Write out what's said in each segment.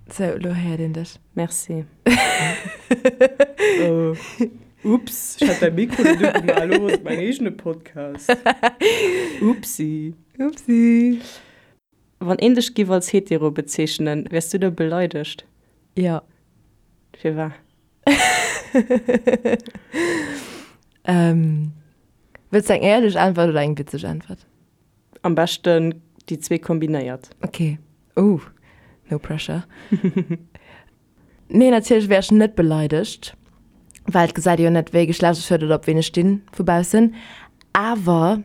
Sou, elo héiert een dech. Merci. Ups, ech hat däi Mikro net ugemaach, elo ass et mäin eegene Podcast. Upsi. Upsi. Wann een dech giff als hetero bezeechnen, wäers du da beleidegt? Jo. Firwat? Wëlls de eng éierlech Äntwert oder eng witzeg Äntwert? Am beschten déi zwee kombinéiert. Ok, oh, no pressure. Nee, natierlech wär ech net beleidegt, well et gesäit ee jo net, wéi ee Geschlecht ech huet oder op ween ech stinn vu baussen. Awer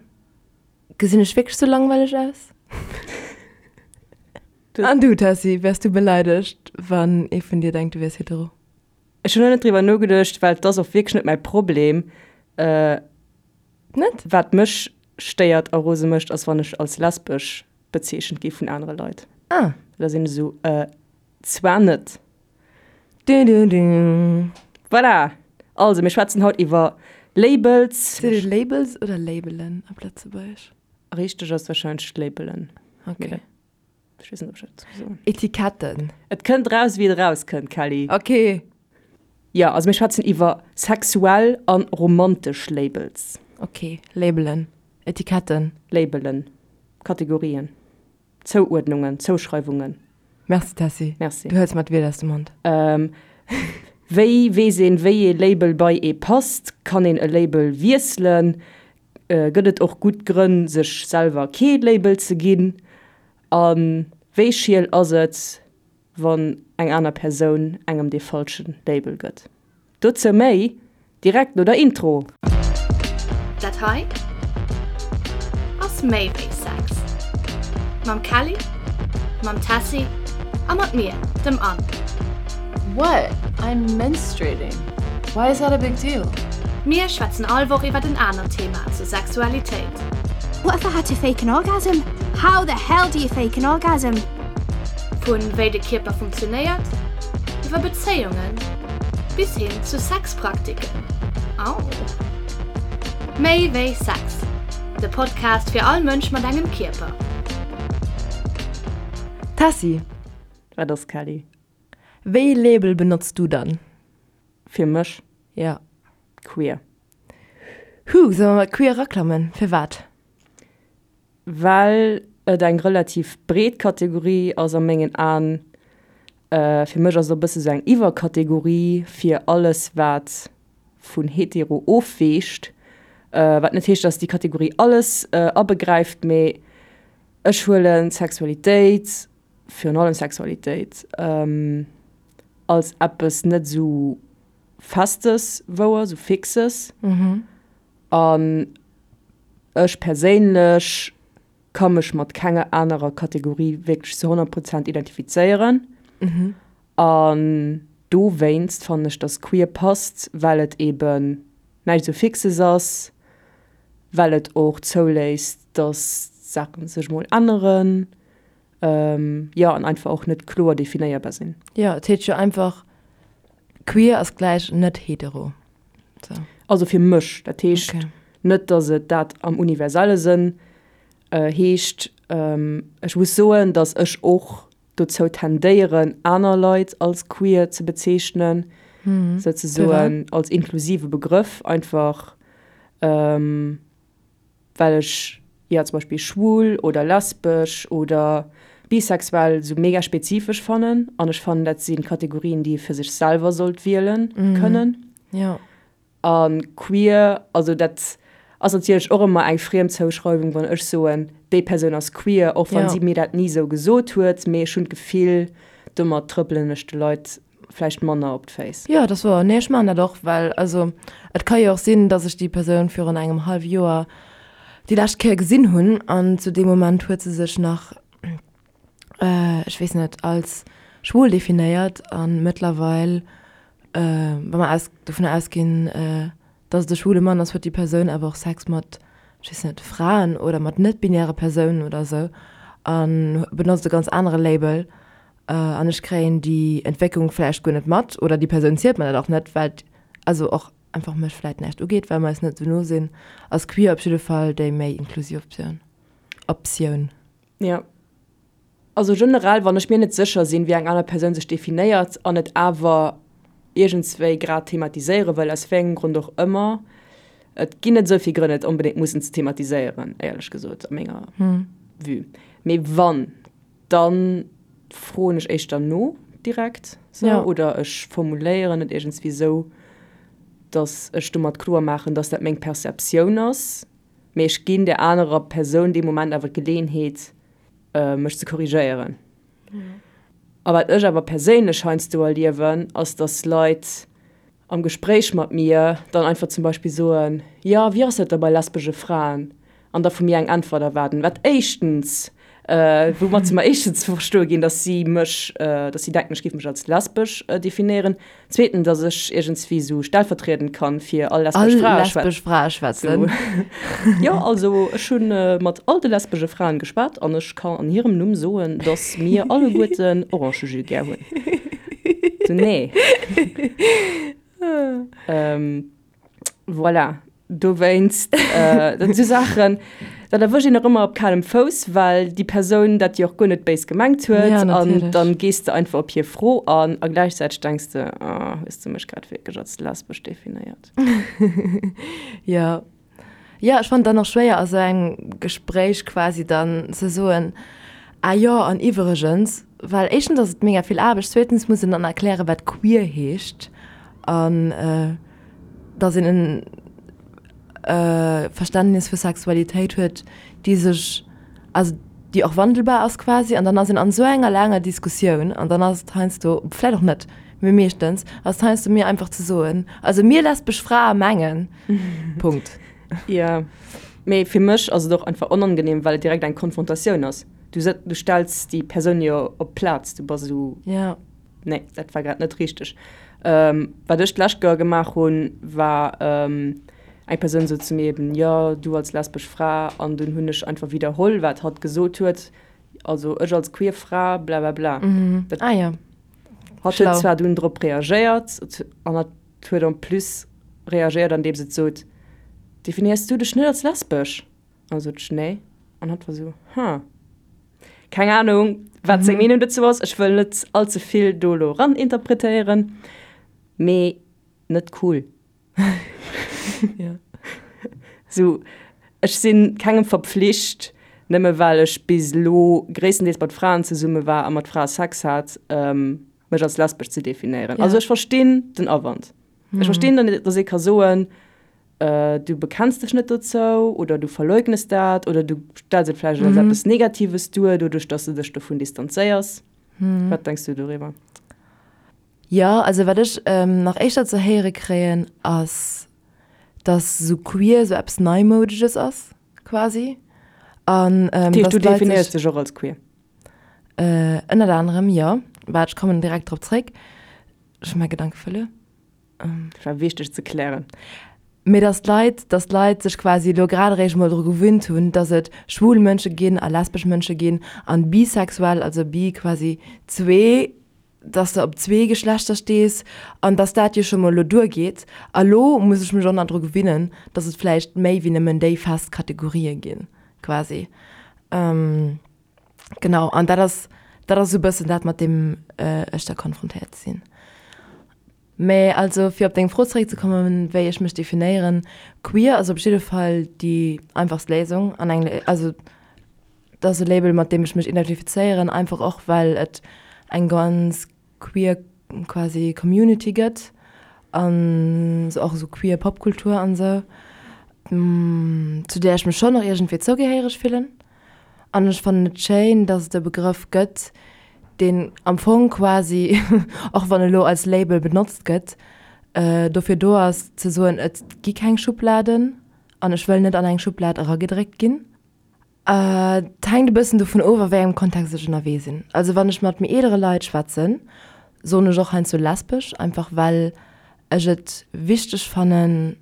gesinn ech wierklech sou langweileg aus? An du, Tessy, wäers du beleidegt, wann ee vun dir denkt, du wiers hetero? Ech hunn och net driwwer nogeduecht, well et ass och wierklech net mäi Problem. Net? Wat mech stéiert a rose mécht, ass wann ech als lesbesch bezeechent gi vun anere Leit. Ah. Da sinn ech esou, äh, zwar net. Du, du, du. Voilà! Also, mir schwätzen haut iwwer Labels. Seet ee Labels oder Labelen op Lëtzebuergesch? Richteg ass warscheinlech Labelen. Okay. Ech weess net, ob ech dat sou soen. Etiketten. Et kënnt raus, wéi et erauskënnt, Kelly. Ok. Jo, also mir schwätzen iwwer sexuell a romantesch Labels. Ok, Labelen, Etiketten. Labelen, Kategorien, Zouuerdnungen, Zouschreiwungen. Merci, Tessy. Merci. Du hëls mer d'Wierder aus dem Mond. Wéi weess een, wéi ee Label bei ee passt? Kann een e Label wiesselen? Gëtt et och gutt Grënn, sech selwer kee Label ze ginn? A wéi schiel ass et, wann eng aner Persoun engem dee falsche Label gëtt? Dozou méi direkt no der Intro! Dat hei ass méi wéi Sex. Mam Kelly, mam Tessy a mat mir, dem Anne. What? I'm menstruating. Why is that a big deal? Mir schwätzen all Woch iwwert en anert Thema zur Sexualitéit. What if I had to fake an orgasm? How the hell do you fake an orgasm? Vu wéi de Kierper funktionéiert, iwwer Bezéiungen bis hin zu Sexpraktiken. Au! Méi wéi Sex, de Podcast fir all Mënsch mat engem Kierper. Tessy! Wat ass, Kelly? Wéi ee Label benotz du dann? Fir mech? Jo. Queer. Huh, solle mer mat queer eraklammen? Firwat? Well et eng relativ breet Kategorie ass a mengen Aen. Fir mech ass et och e bësse sou eng Iwwerkategorie fir alles wat vun hetero ofweecht. Wat net heescht, dass déi Kategorie alles abegräift, mee ech huelen Sexualitéit, virun allem Sexualitéit, als eppes net esou Festes wouer, esou Fixes. An ech perséinlech ka mech mat kenger anerer Kategorie wierklech zu 100 Prozent identifizéieren. An dowéinst fannen ech, dass queer passt, well et eben näischt esou Fixes ass, well et och zouléisst, dass Saache sech mol änneren, jo, an einfach och net kloer definéierbar sinn. Jo, et heescht jo einfach, queer ass gläich net hetero. So. Also fir mech. Dat heescht okay. net, dass et dat am universelle Sënn äh, heescht. Ähm, ech muss soen, dass ech och dozou tendéieren, aner Leit als queer ze bezeechnen, mhm. souzesoen als inklusive Begrëff einfach. Ähm, well ech jo zum Beispill schwul oder lesbesch oder bisexuell esou mega spezifesch fannen an ech fannen dat si Kategorien déi ee fir sech selwer sollt wielen kënnen. Jo. A queer, also dat ass natierlech och ëmmer eng Friemzouschreiwung wann ech soen déi Persoun ass queer, och wann si mir dat ni esou gesot huet, mee ech hunn d'Gefill domat trëppelen ech de Leit vläicht manner op d'Féiss. Jo, dat ass wouer. Nee, ech maachen dat och, well also et ka jo och sinn, datt ech déi Persoun virun engem hallwe Joer déi lescht Kéier gesinn hunn an zu deem Moment huet se sech nach, ech weess net, als schwul definéiert a mëttlerweil, wa mer aus dovunner ausginn, datt et e schwule Mann ass, huet déi Persoun awer och Sex mat, ech weess net, Fraen oder mat net-binäre Persounen oder esou a benotzt e ganz anere Label. An ech kréien déi Entwécklung vläicht guer net mat oder déi Persoun zielt mer dat och net, well et also och einfach mech vläicht näischt ugeet, well mer eis net esou no sinn, ass queer op jidde Fall déi méi inklusiv Optioun. Optioun. Jo. Also generell, wann ech mir net sécher sinn, wéi eng aner Persoun sech definéiert an et awer iergendswéi grad thematiséiere wëll, aus wéi engem Grond och ëmmer, et ginn net esou vill Grënn, et onbedéngt mussen ze thematiséieren, éierlech gesot, a menger Vue. Mee wann, da froen ech éischter no direkt sou oder ech formuléieren et iergendswéi sou, datt ech domat kloer maachen, datt dat meng Perceptioun ass, mee ech ginn där anerer Persoun dee Moment awer d'Geleeënheet, mech ze korrigéieren. A wat ech awer perséinlech heiansdo erliewen, ass, dass Leit am Gespréich mat mir dann einfach zum Beispill soen, Jo, wéi ass dat da bei lesbesche Fraen? An da vu mir eng Äntwert erwaarden, wat éischtens, woumat se mer éischtens ze verstoe ginn, dass si mech, dass si denken, ech géif mech als lesbesch definéieren, Zweeten, dass ech iergendswéi sou stellvertriedend kann fir all lesbesch Frae All lesbesch Frae schwätzen. Jo, also ech hu mat all de lesbesche Fraen geschwat an ech kann an hirem Numm soen, dass mir alleguerten Orangejus gär hunn. Sou, nee. Voilà, dowéinst, dat si Saachen, dat erwëscht een och ëmmer op kalem Fouss, well déi Persoun dat jo och guer net béis gemengt huet. Ja, An natierlech. dann gees de einfach op hir Fro an a gläichzäiteg denks de, ah, hues de mech grad wierklech als lesbesch definéiert? Jo. Jo, ech fannen et dann och schwéier a sou engem Gespréich quasi dann ze soen, ah jo, an iwwregens, well éischtens ass et mega vill Aarbecht, zweetens muss een dann erklären, wat queer heescht an dass een en Verständnis vu Sexualitéit huet, déi sech, also déi och wandelbar ass quasi. An dann ass een an esou enger laanger Diskussioun an dann ass et heiansdo, vläicht och net, mee meeschtens ass et heiansdo méi einfach ze soen, also mir lesbesch Frae mengen, Punkt. Jo, mee fir mech ass et och einfach onangenehm, well et direkt eng Konfrontatioun ass. Du du stells déi Persoun jo op d'Plaz, du bass esou. Jo. Nee, dat war grad net richteg. Wat ech d'lescht Joer gemaach hunn, war eng Persoun sot zu mir eben, jo, du als lesbesch Fra, an dunn hunn ech einfach widderholl, wat hatt gesot huet, also ech als queer Fra, blablabla. Dat, ah ja. Hatt huet zwar dunn drop reagéiert an hatt huet en plus reagéiert, andeems et sot, Definéiers du dech net als lesbesch? An da sot ech, Nee. An hatt war esou, Huh. Keng Ahnung, wat seng Meenung dozou ass. Ech wëll net all ze vill do elo eraninterpretéieren, mee net cool. Ja. Sou, ech si kengem verpflicht, nëmme well ech bis elo gréisstendeels mat Fraen zesumme war a mat Frae Sex hat, mech als lesbesch ze definéieren. Also ech verstinn den Awand. Ech verstinn, datt ee ka soen, du bekennst dech net dozou oder du verleugnes dat oder du stells et vläicht als eppes Negatives duer, doduerch dass du dech dovun distanzéiers. Wat denks du doriwwer? Jo, also wat ech nach éischter ze héiere kréien, ass, dass esou queer esou eppes Neimoudeges ass, quasi. An Dat heescht, du definéiers dech och als queer? Ënnert anerem, jo. Waart, ech kommen direkt drop zréck. Ech hu mäi Gedanke verluer. Dat war wichteg ze klären. Mee dass d'Leit, dass d'Leit sech quasi elo grad eréischt emol dru gewinnt hunn, dass et schwul Mënsche ginn a lesbesch Mënsche ginn an bisexuell, also bi quasi zwee, dass de op zwee Geschlechter stees an dass dat jo scho mol elo duergeet. A lo muss ech mech och nach dru gewinnen, dass et vläicht méi wéi nëmmen déi fest Kategorië ginn, quasi. Genau, an dat ass, dat ass esou e bëssen dat, mat deem ech da konfrontéiert sinn. Mä also fir op deng Fro zeréckzekommen, wéi ech mech definéieren, queer ass op jidde Fall déi einfachst Léisung an eng, also et ass e Label mat deem ech mech identifizéieren, einfach och well et eng ganz queer quasi Community gëtt an och esou queer Popkultur an esou, zu där ech mech schonn och iergendwéi zougehéiereg fillen. An ech fannen et schéin, dass et e Begrëff gëtt, deen am Fong quasi, och wann e lo als Label benotzt gëtt, dofir do ass ze soen, et gi keng Schubladen an ech wëll net an eng Schublad eragedréckt ginn. Et hänkt e bëssen dovun of, a wéi engem Kontext ech ënnerwee sinn. Also wann ech mat méi eelere Leit schwätzen, soen ech och heiansdo lesbesch, einfach well ech et wichteg fannen,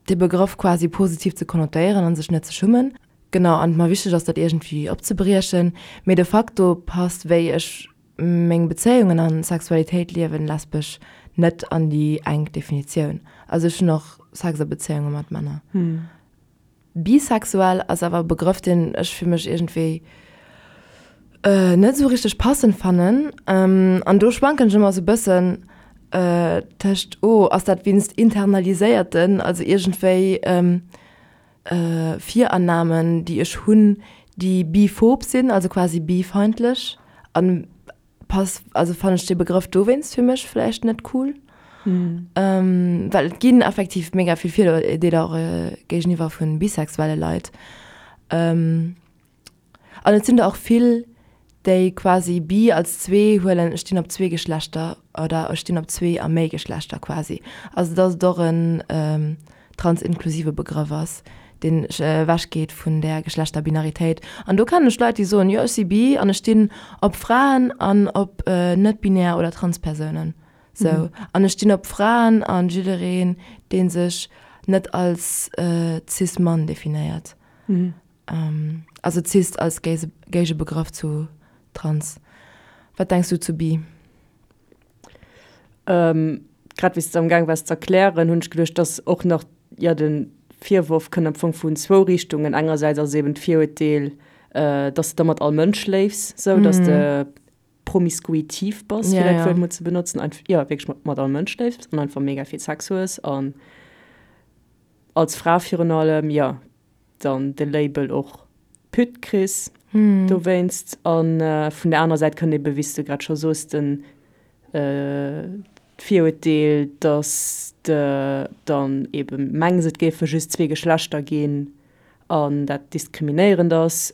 dee Begrëff quasi positiv ze konnotéieren an sech net ze schummen. Genau, an et mer wichteg ass, dat iergendwéi opzebriechen. Mee de facto passt, wéi ech meng Bezéiungen an Sexualitéit liewen, lesbesch net an déi enk Definitioun. Also ech hunn och Sex a Bezéiunge mat Männer. Bisexuell ass awer e Begrëff, deen ech fir mech iergendwéi. net esou richteg passend fannen. An do schwanken ech ëmmer esou e bëssen tëscht, oh, ass dat wéinst internaliséierten, also iergendwéi Virannamen, déi ech hunn, déi biphob sinn, also quasi bifeindlech, an pass, also fannen ech dee Begrëff dowéinst fir mech vläicht net cool. Well et ginn effektiv mega vill Virurdeeler och géigeniwwer vu bisexuelle Leit. An et sinn der och vill, déi quasi bi als zwee huelen, ech stinn op zwee Geschlechter oder ech stinn op zwee a méi Geschlechter quasi. Also datt et och en transinklusive Begrëff ass, deen ewechgeet vun där Geschlechterbinaritéit. An do kennen ech Leit, déi soen, jo ech si bi an ech stinn op Fraen an op net-binär oder Transpersounen. Sou. An ech stinn op Fraen a jiddereen, dee sech net als cis-Mann definéiert. Also cis als Géigebegrëff zu trans. Wat denks du zu bi? Grad wéi s de am gaang waars z'erklären, hunn ech geduecht, dass och nach, jo, de Virworf kënnt am Fong vun zwou Richtungen. Engersäits ass eben d'Virurteel, dass de da mat all Mënsch schléifs, sou dass de promiskuitiv bass, fir dat Wuert mol ze benotzen, jo, wierklech mat all Mënsch schléifs an einfach mega vill Sex hues an als Fra virun allem, jo. dann de Label och Pütt kriss dowéinst. A vun der anerer Säit kënnt ebe, wéi s de grad scho soos, den d'Virurteel, dass de dann ebe mengs, et géife just zwee Geschlechter ginn an dat diskriminéierend ass.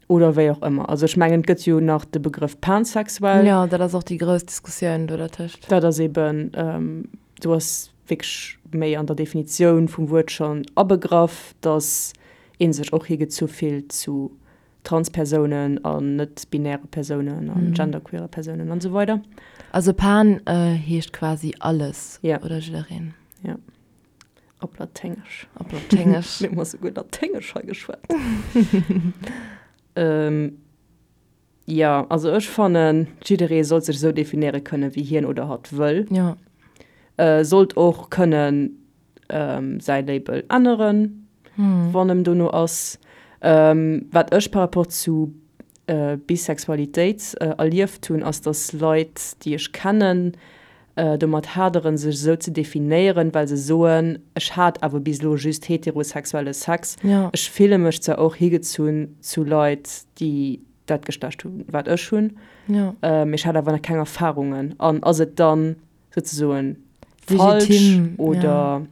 Oder wéi och ëmmer. Also ech mengen, et gëtt jo nach de Begrëff pansexuell. Jo, dat ass och déi grouss Diskussioun do dertëscht. Dat ass eben, do ass wierklech méi an der Definitioun vum Wuert schonn abegraff, datt ee sech och higezu fillt zu Transpersounen an net-binäre Persounen an genderqueere Persounen an esou weider. Also pan heescht quasi alles oder jiddereen. Jo. Op Laténgesch. Op Laténgesch. Mir hu souguer Laténgesch hei geschwat. Jo, also ech fannen, jidderee sollt sech esou definéiere kënnen, wéi hien oder hatt wëll. Jo. Sollt och kënnen säi Label änneren, wann em dono ass. Wat ech par rapport zu Bisexualitéit erlieft hunn, ass, dass Leit, déi ech kennen, domat haderen, sech esou ze definéieren, well se soen, ech hat awer bis elo just heterosexuelle Sex, ech fille mech zwar och higezunn zu Leit, déi dat Geschlecht hunn, wat ech hunn, mee ech hat awer nach keng Erfarungen. An ass et dann souzesoen falsch oder?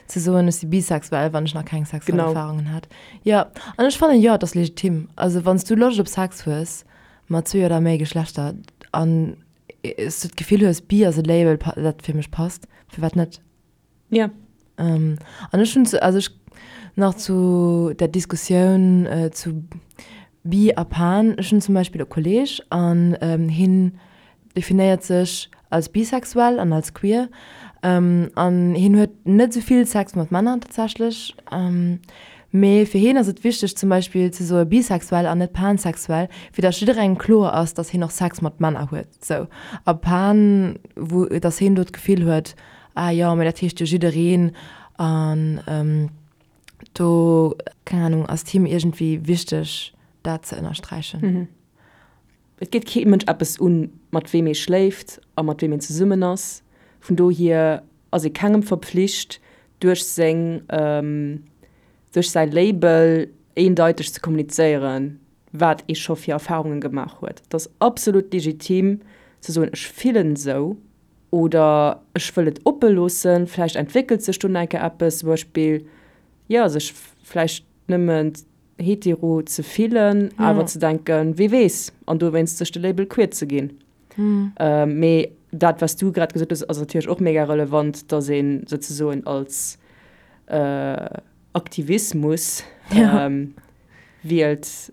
Ze soen, ech si bisexuell, wann ech nach keng sexuell Erfarungen hat. Jo, an ech fannen, jo, et ass legitim. Also wann s du Loscht op Sex hues mat zwee oder méi Geschlechter an s du d'Gefill hues, bi ass e Label, dat fir mech passt, firwat net? Jo. An ech hunn, also ech, nach zu der Diskussioun zu bi a pan, ech hunn zum Beispill e Kolleg an hien definéiert sech als bisexuell an als queer an hien huet net esou vill Sex mat Männer tatsächlech, mee fir hien ass et wichteg zum Beispill ze soe bisexuell an net pansexuell, fir datt jidderengem kloer ass, datt hien och Sex mat Männer huet sou a pan, wou datt hien do d'Gefill huet, ah jo, mee dat heescht jo jiddereen an do, keng Ahnung, ass et him iergendwéi wichteg dat ze ënnersträichen. Et geet kee Mënsch eppes un, mat weem ee schléift a mat weem een zesummen ass. Vun dohier ass ee kengem verpflicht, duerch seng, duerch säi Label eendeiteg ze kommunizéieren, wat ee scho fir Erfarunge gemaach huet. Et ass absolut legitim ze soen, ech fillen esou oder ech wëll et oppe loossen. Vläicht entwéckelt sech do nach eng Kéier eppes, zum Beispill, jo, sech vläicht nëmmen hetero ze fillen, awer ze denken, wie weess, an dowéinst sech de Label queer ze ginn. Mee dat, wat s du grad gesot hues, ass natierlech och mega relevant, datt ee souzesoen als Aktivismus wielt,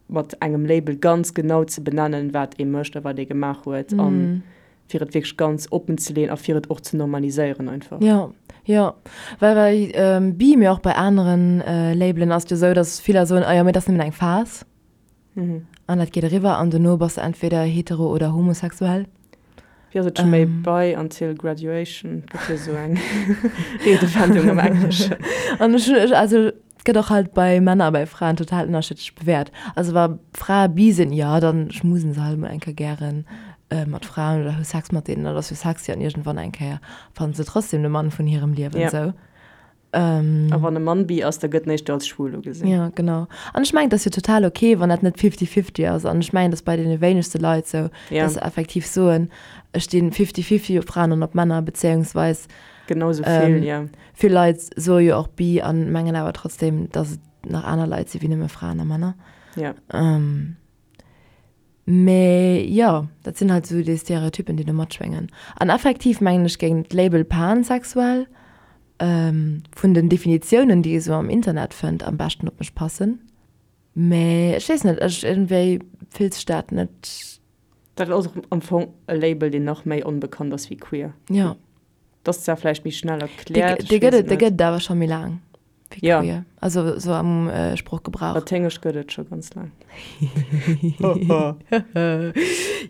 mat engem Label ganz genau ze benennen, wat ee mécht a wat ee gemaach huet. Fir et wierklech ganz oppen ze leeën a fir et och ze normaliséieren einfach. Jo, jo. Well bei Bi, mee och bei aneren Labelen ass et jo esou, datt vill Leit soen, ah jo, mee dat ass nëmmen eng Phas an dat geet eriwwer an dono bass de entweder hetero oder homosexuell. Wéi ass et scho méi bi until graduation? Gëtt jo esou eng Redewendung am Engleschen. An ech hunn, also. gëtt och halt bei Männer a bei Fraen total ënnerschiddlech bewäert. Also wa Frae bi sinn, jo dann schmusen se halt mol eng Kéier gären mat Fraen oder hu Sex mat deenen, dat ass jo sexy an iergendwann eng Kéier fannen se trotzdem de Mann vun hirem Liewen esou. A wann e Mann bi ass, da gëtt en éischter als schwul ugesinn. Jo, genau. An ech mengen, et ass jo total ok, wann dat net fifty-fifty ass. An ech mengen, et ass bei deene wéinegste Leit esou, dass se effektiv soen, ech sti fifty-fifty op Fraen an op Männer, bezéiungsweis. Genau esou vill, jo. Vill Leit soe jo och bi an mengen awer trotzdem, dass et nach aner Leit si wéi nëmme Fraen a Männer. Jo. Mee jo, dat sinn halt esou déi Stereotypen, déi do matschwéngen. An effektiv mengen ech géing d'Label pansexuell vun den Definitiounen, déi ee sou am Internet fënnt, am beschten op mech passen. Mee ech weess net, ech iergendwéi fillt sech dat net. Dat ass och am Fong e Label, deen nach méi onbekannt ass wéi queer. Jo. Dat ass zwar vläicht méi schnell erkläert, ech weess et net. Dee gëtt et awer scho méi laang wéi queer. Also sou am Sprochgebrauch. Laténgesch gëtt et scho ganz laang.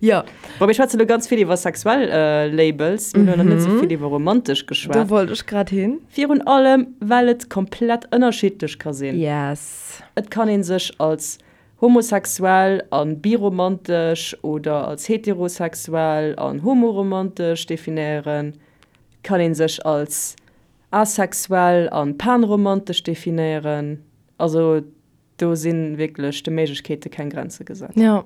Jo. Bon, mir schwätzen elo ganz vill iwwer sexuell Labels, mir hunn elo nach net sou vill iwwer romantesch geschwat. Do wollt ech grad hin. Virun allem, well et komplett ënnerschiddlech ka sinn. Yes. Et kann ee sech als homosexuell an biromantesch oder als heterosexuell an homoromantesch definéieren, kann ee sech als asexuell an panromantesch definéieren. Also do si wierklech de Méiglechkeete keng Grenze gesat. Jo.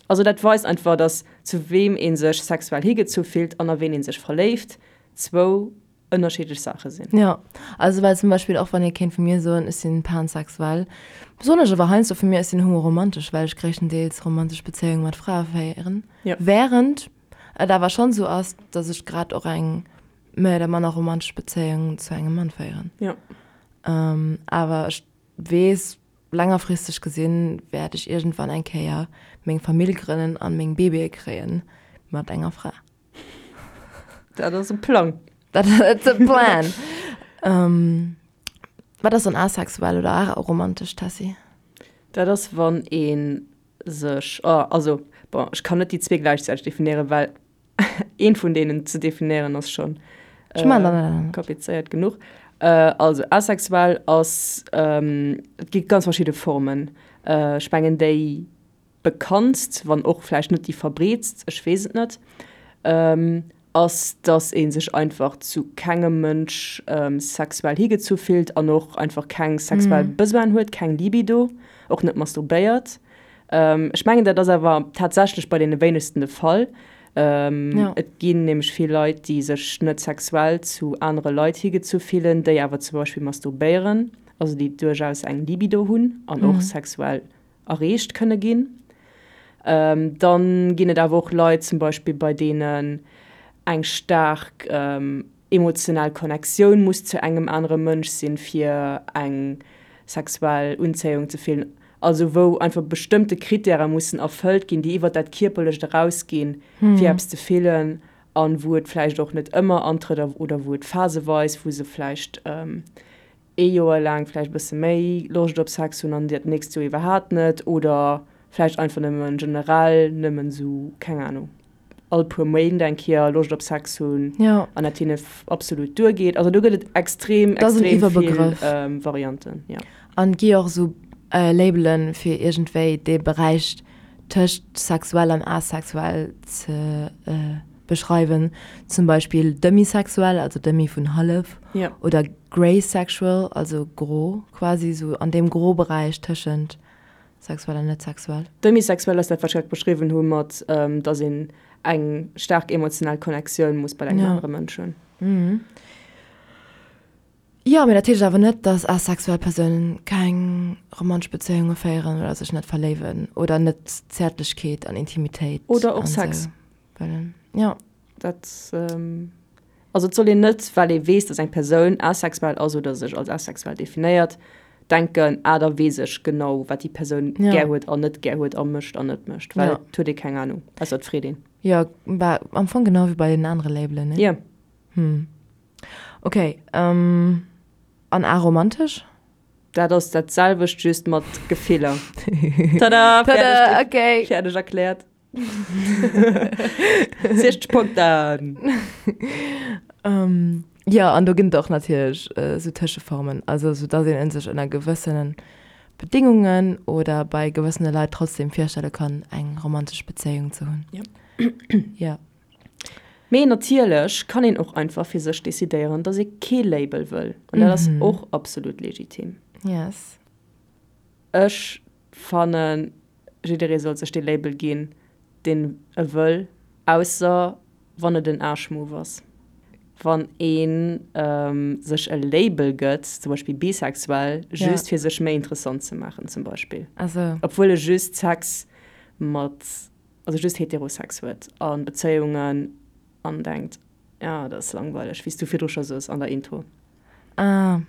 Also dat weist einfach, datt zu weem ee sech sexuell higezu fillt an a ween ee sech verléift, zwou ënnerschiddlech Saache sinn. Jo, also well zum Beispill och wann ee kéint vu mir soen, ech sinn pansexuell, soen ech awer heiansdo vu mir, ech sinn homoromantesch, well ech gréisstendeels romantesch Bezéiunge mat Frae féieren, während et awer schonn esou ass, datt ech grad och eng méi oder manner romantesch Bezéiung zu engem Mann féieren. Jo. Awer ech weess, längerfristeg gesinn, wäert ech iergendwann eng Kéier meng Famill grënnen an meng Babye kréien mat enger Fra. Dat ass e Plang. Dat ass e Plan. ähm, wat ass dann asexuell oder aromantesch, Tessy? Dat ass, wann ee sech, oh, also, bon, ech kann net déi zwee gläichzäiteg definéieren, well eent vun deenen ze definéieren ass schonn äh, komplizéiert genuch. Äh, also, asexuell ass, ähm, et gi ganz verschidde Formen. Äh, ech mengen, déi bekanntst, wann och vläicht net déi verbreetst, ech weess et net, ass, dass ee sech einfach zu kengem Mënsch sexuell higezu fillt an och einfach keng sexuell Besoinen huet, keng Libido, och net masturbéiert. Ech mengen, dat ass awer tatsächlech bei deene wéinegsten de Fall. Et ginn nämlech vill Leit, déi sech net sexuell zu anere Leit higezu fillen, déi awer zum Beispill masturbéieren, also déi duerchaus eng Libido hunn an och sexuell erreecht kënne ginn. Dann ginn et awer och Leit zum Beispill, bei deenen eng staark emotional Connectioun muss zu engem anere Mënsch sinn, fir eng sexuell Unzéiung ze fillen. Also wou einfach bestëmmte Krittäre mussen erfëllt ginn, déi iwwert dat Kierperlecht erausginn, fir eppes ze fillen an wou et vläicht och net ëmmer antrëtt oder wou et phaseweis, wou se vläicht ee Joer laang vläicht e bësse méi Loscht op Sex hunn an dat nächst Joer iwwerhaapt net oder vläicht einfach nëmmen generell nëmmen esou, keng Anung, all puer Méint eng Kéier Loscht op Sex hunn Ja. an dat hinne absolut duergeet. Also do gëtt et extrem, Dat ass en extrem vill Iwwerbegrëff. Varianten, ja. An et gi och esou Labelen, fir iergendwéi dee Beräich tëscht sexuell an asexuell ze beschreiwen, zum Beispill demisexuell, also demi vun hallef, ja. oder greysexual, also gro quasi, sou an deem Gro-Beräich tëschent sexuell an net sexuell. Demisexuell ass dat, wat ech grad beschriwwen hu mat, dass een eng staark emotional Connectioun muss bei engem Ja. anere Mënsch hunn. Mhm. Jo, mee dat heescht awer net, dass asexuell Persounen keng romantesch Bezéiunge féieren oder sech net verléiwen oder net Zäertlechkeet an Intimitéit Oder och an Sex. sou wëllen. Jo. Dat, also et soll een net, well ee weess, dass eng Persoun asexuell ass oder sech als asexuell definéiert, denken, ah da weess ech genau, wat déi Persoun Ja. gär huet an net gär huet a mécht an net mécht, well Ja. et huet ee keng Anung, ausser et freet een. Jo, bah, am Fong genau wéi bei den anere Labelen, ne? Jo. Hm. Ok, an aromantesch? Dat ass dat selwecht, just mat Gefiller. Tada! Tada! Ok. Fäerdeg erkläert. 60 Punkten! Jo, an do ginn et och natierlech esou Tëscheformen, also esou datt een sech ënner gewëssene Bedingungen oder bei gewëssene Leit trotzdem virstelle kann, eng romantesch Bezéiung ze hunn. Jo. Jo. Mee natierlech kann een och einfach fir sech decidéieren, datt ee kee Label wëll, an dat ass och absolut legitim. Yes. Ech fannen, jidderee soll sech dee Label ginn, deen e wëll, ausser wann et en Aarschmove ass. Wann ee sech e Label gëtt, zum Beispill bisexuell, just fir sech méi interessant ze maachen zum Beispill, obwuel e just Sex mat, also just Heterosex huet a Bezéiungen an denkt, ja dat ass langweileg, wéi s du virdru scho soos an der Intro. Ah.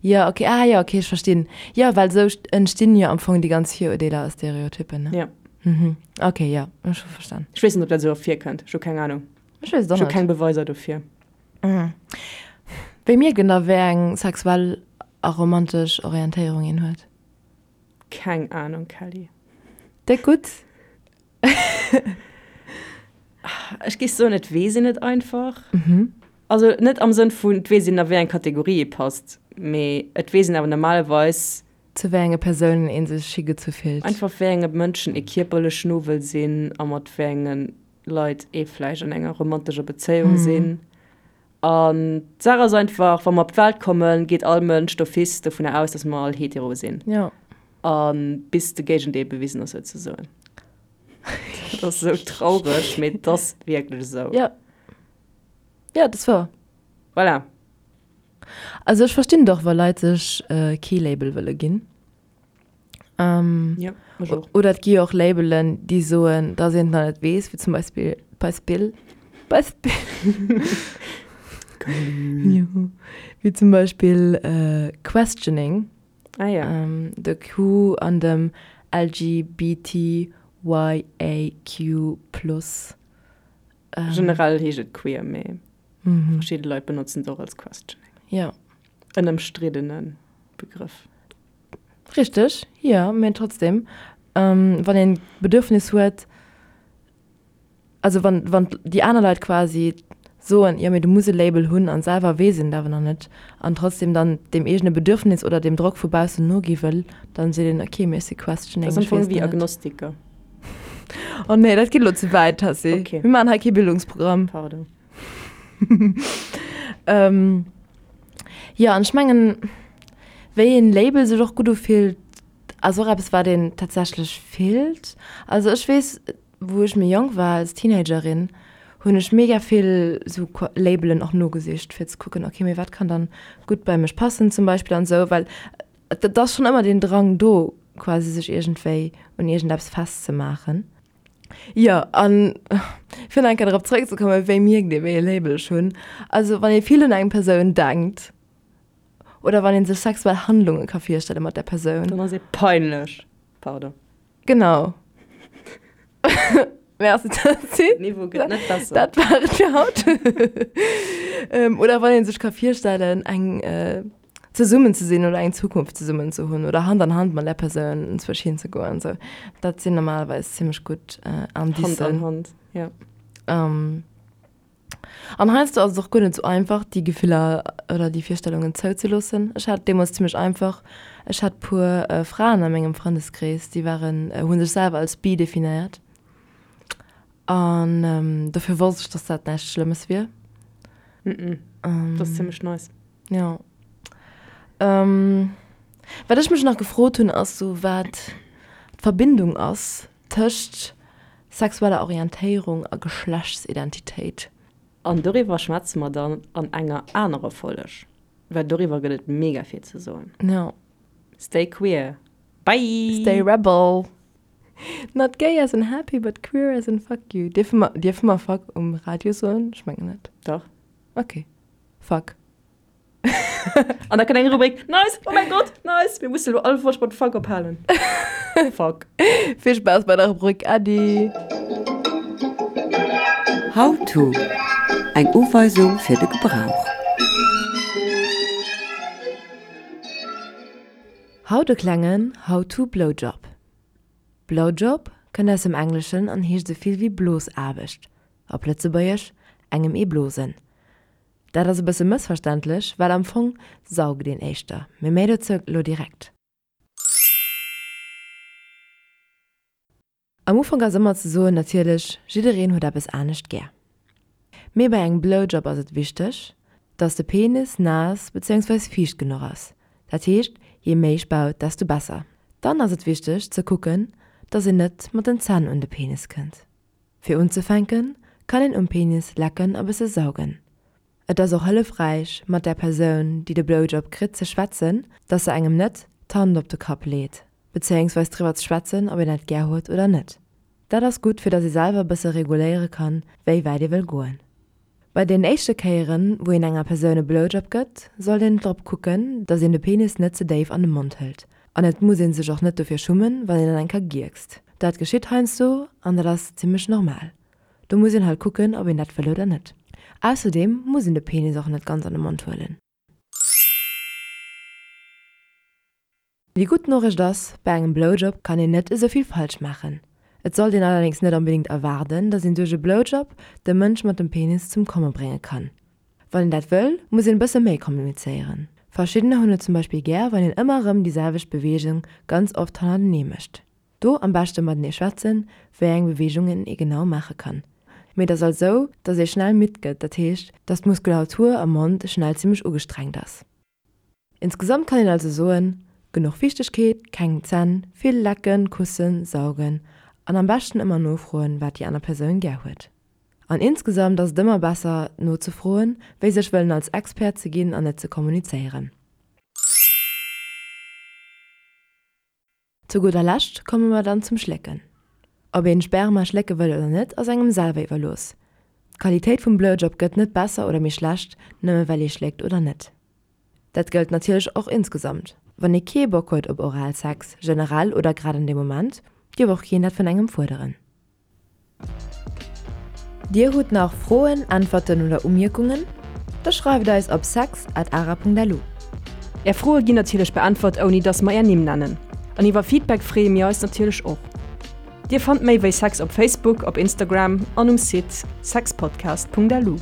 Jo, okay, ah jo, okay, ech verstinn. Jo, well esou entstinn jo am Fong déi ganz Virurdeeler a Stereotyppen, ne? Jo. Mhm. Okay, jo, ech hu verstan. Ech weess net, ob dat esou oft virkënnt. Ech hu keng Anung. Ech weess et och Ech hu net. keng Beweiser dofir. Mhm. Wéi mierkt een da, wéi eng sexuell a romantesch Orientéierung een huet? Keng Anung, Kelly. Déck gutt. Ech géif soen, et weess een et einfach. Also net am Sënn vun, et weess een, a wéi eng Kategorie ee passt, mee et weess een awer normalerweis. Zu wéi enge Persounen ee sech higezu fillt. Einfach wéi enge Mënschen ee kierperlech no wëll sinn a mat wéi enge Leit ee vläicht an enger romantescher Bezéiung sinn. An d'Saach ass einfach, wa mer op d'Welt kommen, geet all Mënsch d'office dovunner aus, dass mer all hetero sinn. Jo. A bis de Géigendeel bewisen ass, souzesoen. Dat ass esou traureg, mee et ass wierklech esou. Jo. Jo, dat ass wouer. Voilà. Also ech verstinn et och, wa Leit sech kee Label wëlle ginn. Ja, ech och. Oder et gi jo och Labelen, déi soen, dass een et nach net weess, wéi zum Beispill, Beispill, Beispill, jo, wéi zum Beispill Questioning. Ah ja. De Q an dem LGBTYAQ plus. Generell heescht et queer, mee verschidde Leit benotzen et och als Questioning. Jo. En ëmstriddene Begrëff. Richteg, jo, mee trotzdem, wann een d'Bedürfnis huet, also wann, wann déi aner Leit quasi soen, jo mee du muss e Label hunn an selwer weess een et awer nach net an trotzdem dann deem eegene Bedürfnis oder deem Drock vu baussen nogi wëll, dann seet een, okay, mee ech si questioning, Dat ass am ech weess Fong wéi et net. Agnostiker. Oh nee, dat geet elo ze wäit, Tessy. Okay. Mir maachen hei kee Bildungsprogramm. Pardon. Jo, an ech mengen, wéi een Label sech och gutt ufillt, ass och eppes, wat een tatsächlech fillt. Also ech weess, wou ech méi jonk war, als Teenagerin, hunn ech mega vill esou Labelen och nogesicht, fir ze kucken, okay, mee wat kann dann gutt bei mech passen zum Beispill an esou, well et ass schonn ëmmer deen Drang do, quasi sech iergendwéi un iergendeppes festzemaachen. Jo, an fir nach eng Kéier drop zréckzekommen, wéi mierkt ee wéi ee Label ech hunn? Also wann ee vill un eng Persoun denkt oder wann ee sech sexuell Handlunge ka virstelle mat där Persoun. Dann ass ee peinlech, pardon. Genau. Merci Tessy. Den Niveau gëtt net besser. Dat war et fir haut. Oder wann ee sech ka virstellen eng zesummen ze sinn oder eng Zukunft zesummen ze hunn oder Hand an Hand mat där Persoun enzwousch hinzegoen an esou. Dat sinn normalerweis zimmlech gutt Indicen. Hand an Hand, ja. An heiansdo ass et och guer net esou einfach, déi Gefiller oder déi Virstellungen zouzeloossen. Ech hat et deemools zimmlech einfach. Ech hat puer Fraen a mengem Frëndeskrees, déi waren, hu sech selwer als bi definéiert. An dofir wosst ech, dass dat näischt Schlëmmes wier. Dat ass zimmlech nice. Jo. Wat ech mech nach gefrot hunn, ass sou wat d'Verbindung ass tëscht sexueller Orientéierung a Geschlechtsidentitéit. An doriwwer schwätze mer dann an enger anerer Folleg, well doriwwer gëtt et mega vill ze soen. Jo. Stay queer. Bye! Stay rebel. Not gay as in happy, but queer as in fuck you. Dierfe mer, dierfe mer fuck um Radio soen? Ech mengen net. Dach. Ok. Fuck. An da kënnt eng Rubrik, Nice! Oh mäin Gott, nice! Mir musse lo all Folg mat Fuck ophalen. Fuck. Vill Spaass bei der Rubrik. Äddi! How to, Eng Uweisung fir de Gebrauch. Haut e klengen How to Blowjob. Blowjob kënnt aus dem Engleschen an heescht esou vill wéi Blosaarbecht, op Lëtzebuergesch engem ee blosen. Dat ass e bësse mëssverständlech, well am Fong saugt een éischter. Mee méi dozou elo direkt. Am Ufank ass ëmmer ze soen, natierlech, jiddereen huet eppes anescht gär. Mee bei engem Blowjob ass et wichteg, dass de Penis naass bezéiungsweis fiicht genuch ass. Dat heescht, je méi Spaut, desto besser. Dann ass et wichteg ze kucken, dass een net mat den Zänn un de Penis kënnt. Fir unzefänken, kann een um Penis lecken a bësse saugen. Et ass och hëllefräich, mat der Persoun, déi de Blowjob kritt, ze schwätzen, dass se engem net d'Hand op de Kapp leet, bezéiungsweis driwwer ze schwätzen, ob een dat gär huet oder net. Dat ass gutt, fir dass ee selwer e bësse reguléiere kann, wéi wäit ee wëll goen. Bei den éischte Kéieren, wou een enger Persoun e Blowjob gëtt, sollt een drop kucken, dass een de Penis net ze déif an de Mond hëlt. An et muss ee sech och net dofir schummen, wann een dann eng Kéier gierkst. Dat geschitt heiansdo an dat ass zimmlech normal. Do muss een halt kucken, ob een dat wëll oder net. Ausserdeem muss een de Penis och net ganz an de Mond huelen. Déi gutt Noriicht ass, bei engem Blowjob kann een net esou vill falsch maachen. Et sollt een allerdéngs net onbedéngt erwaarden, dass een duerch e Blowjob de Mënsch mat dem Penis zum komme brénge kann. Wann een dat wëll, muss een e bësse méi kommunizéieren. Verschiddener hunn et zum Beispill gär, wann een ëmmer erëm déi selwecht Beweegung ganz oft hannertenee mécht. Do am beschte matenee schwätzen, wéi eng Beweegungen ee genau maache kann. Mee et ass alt sou, dass ee schnell midd gëtt, dat heescht, dass d'Muskulatur am Mond schnell zimmlech ugestrengt ass. Insgesamt kann een also soen, genuch Fiichtegkeet, keng Zänn, vill lecken, kussen, saugen an am beschten ëmmer nofroen, wat déi aner Persoun gär huet. An insgesamt ass et ëmmer besser nozefroen, wéi sech wëllen als Expert ze ginn an net ze kommunizéieren. Zu gudder Lescht komme mer dann zum Schlécken. Ob een Sperma schlécke wëll oder net ass engem selwer iwwerlooss. D'Qualitéit vum Blowjob gëtt net besser oder méi schlecht nëmme well ee schléckt oder net. Dat gëllt natierlech och insgesamt. Wann ee kee Bock huet op Oralsex, generell oder grad an deem Moment, dierf och keen dat vun engem fuerderen. Dir hutt nach Froen, Äntwerten oder Umierkungen? Da schreift eis op sex at ara.lu. Är Froe ginn natierlech beäntwert ouni dass mer är Nimm nennen. An iwwer Feedback freeë mir eis natierlech och. Dir fannt méi wéi Sex op Facebook, op Instagram an um Site sexpodcast.lu.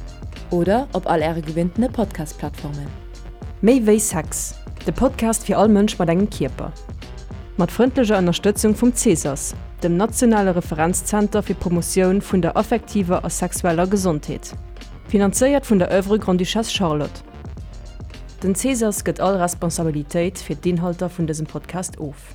Oder op all äre gewinntene Podcast-Plattformen. Méi wéi Sex, de Podcast fir all Mënsch mat engem Kierper. Mat frëndlecher Ënnerstëtzung vum CSAS, dem nationale Referenzzenter fir d'Promotioun vun der affektiver a sexueller Gesondheet. Finanzéiert vun der Oeuvre Grande-Duchesse Charlotte. Den CSAS gëtt all Responsabilitéit fir d'Inhalter vun dësem Podcast of.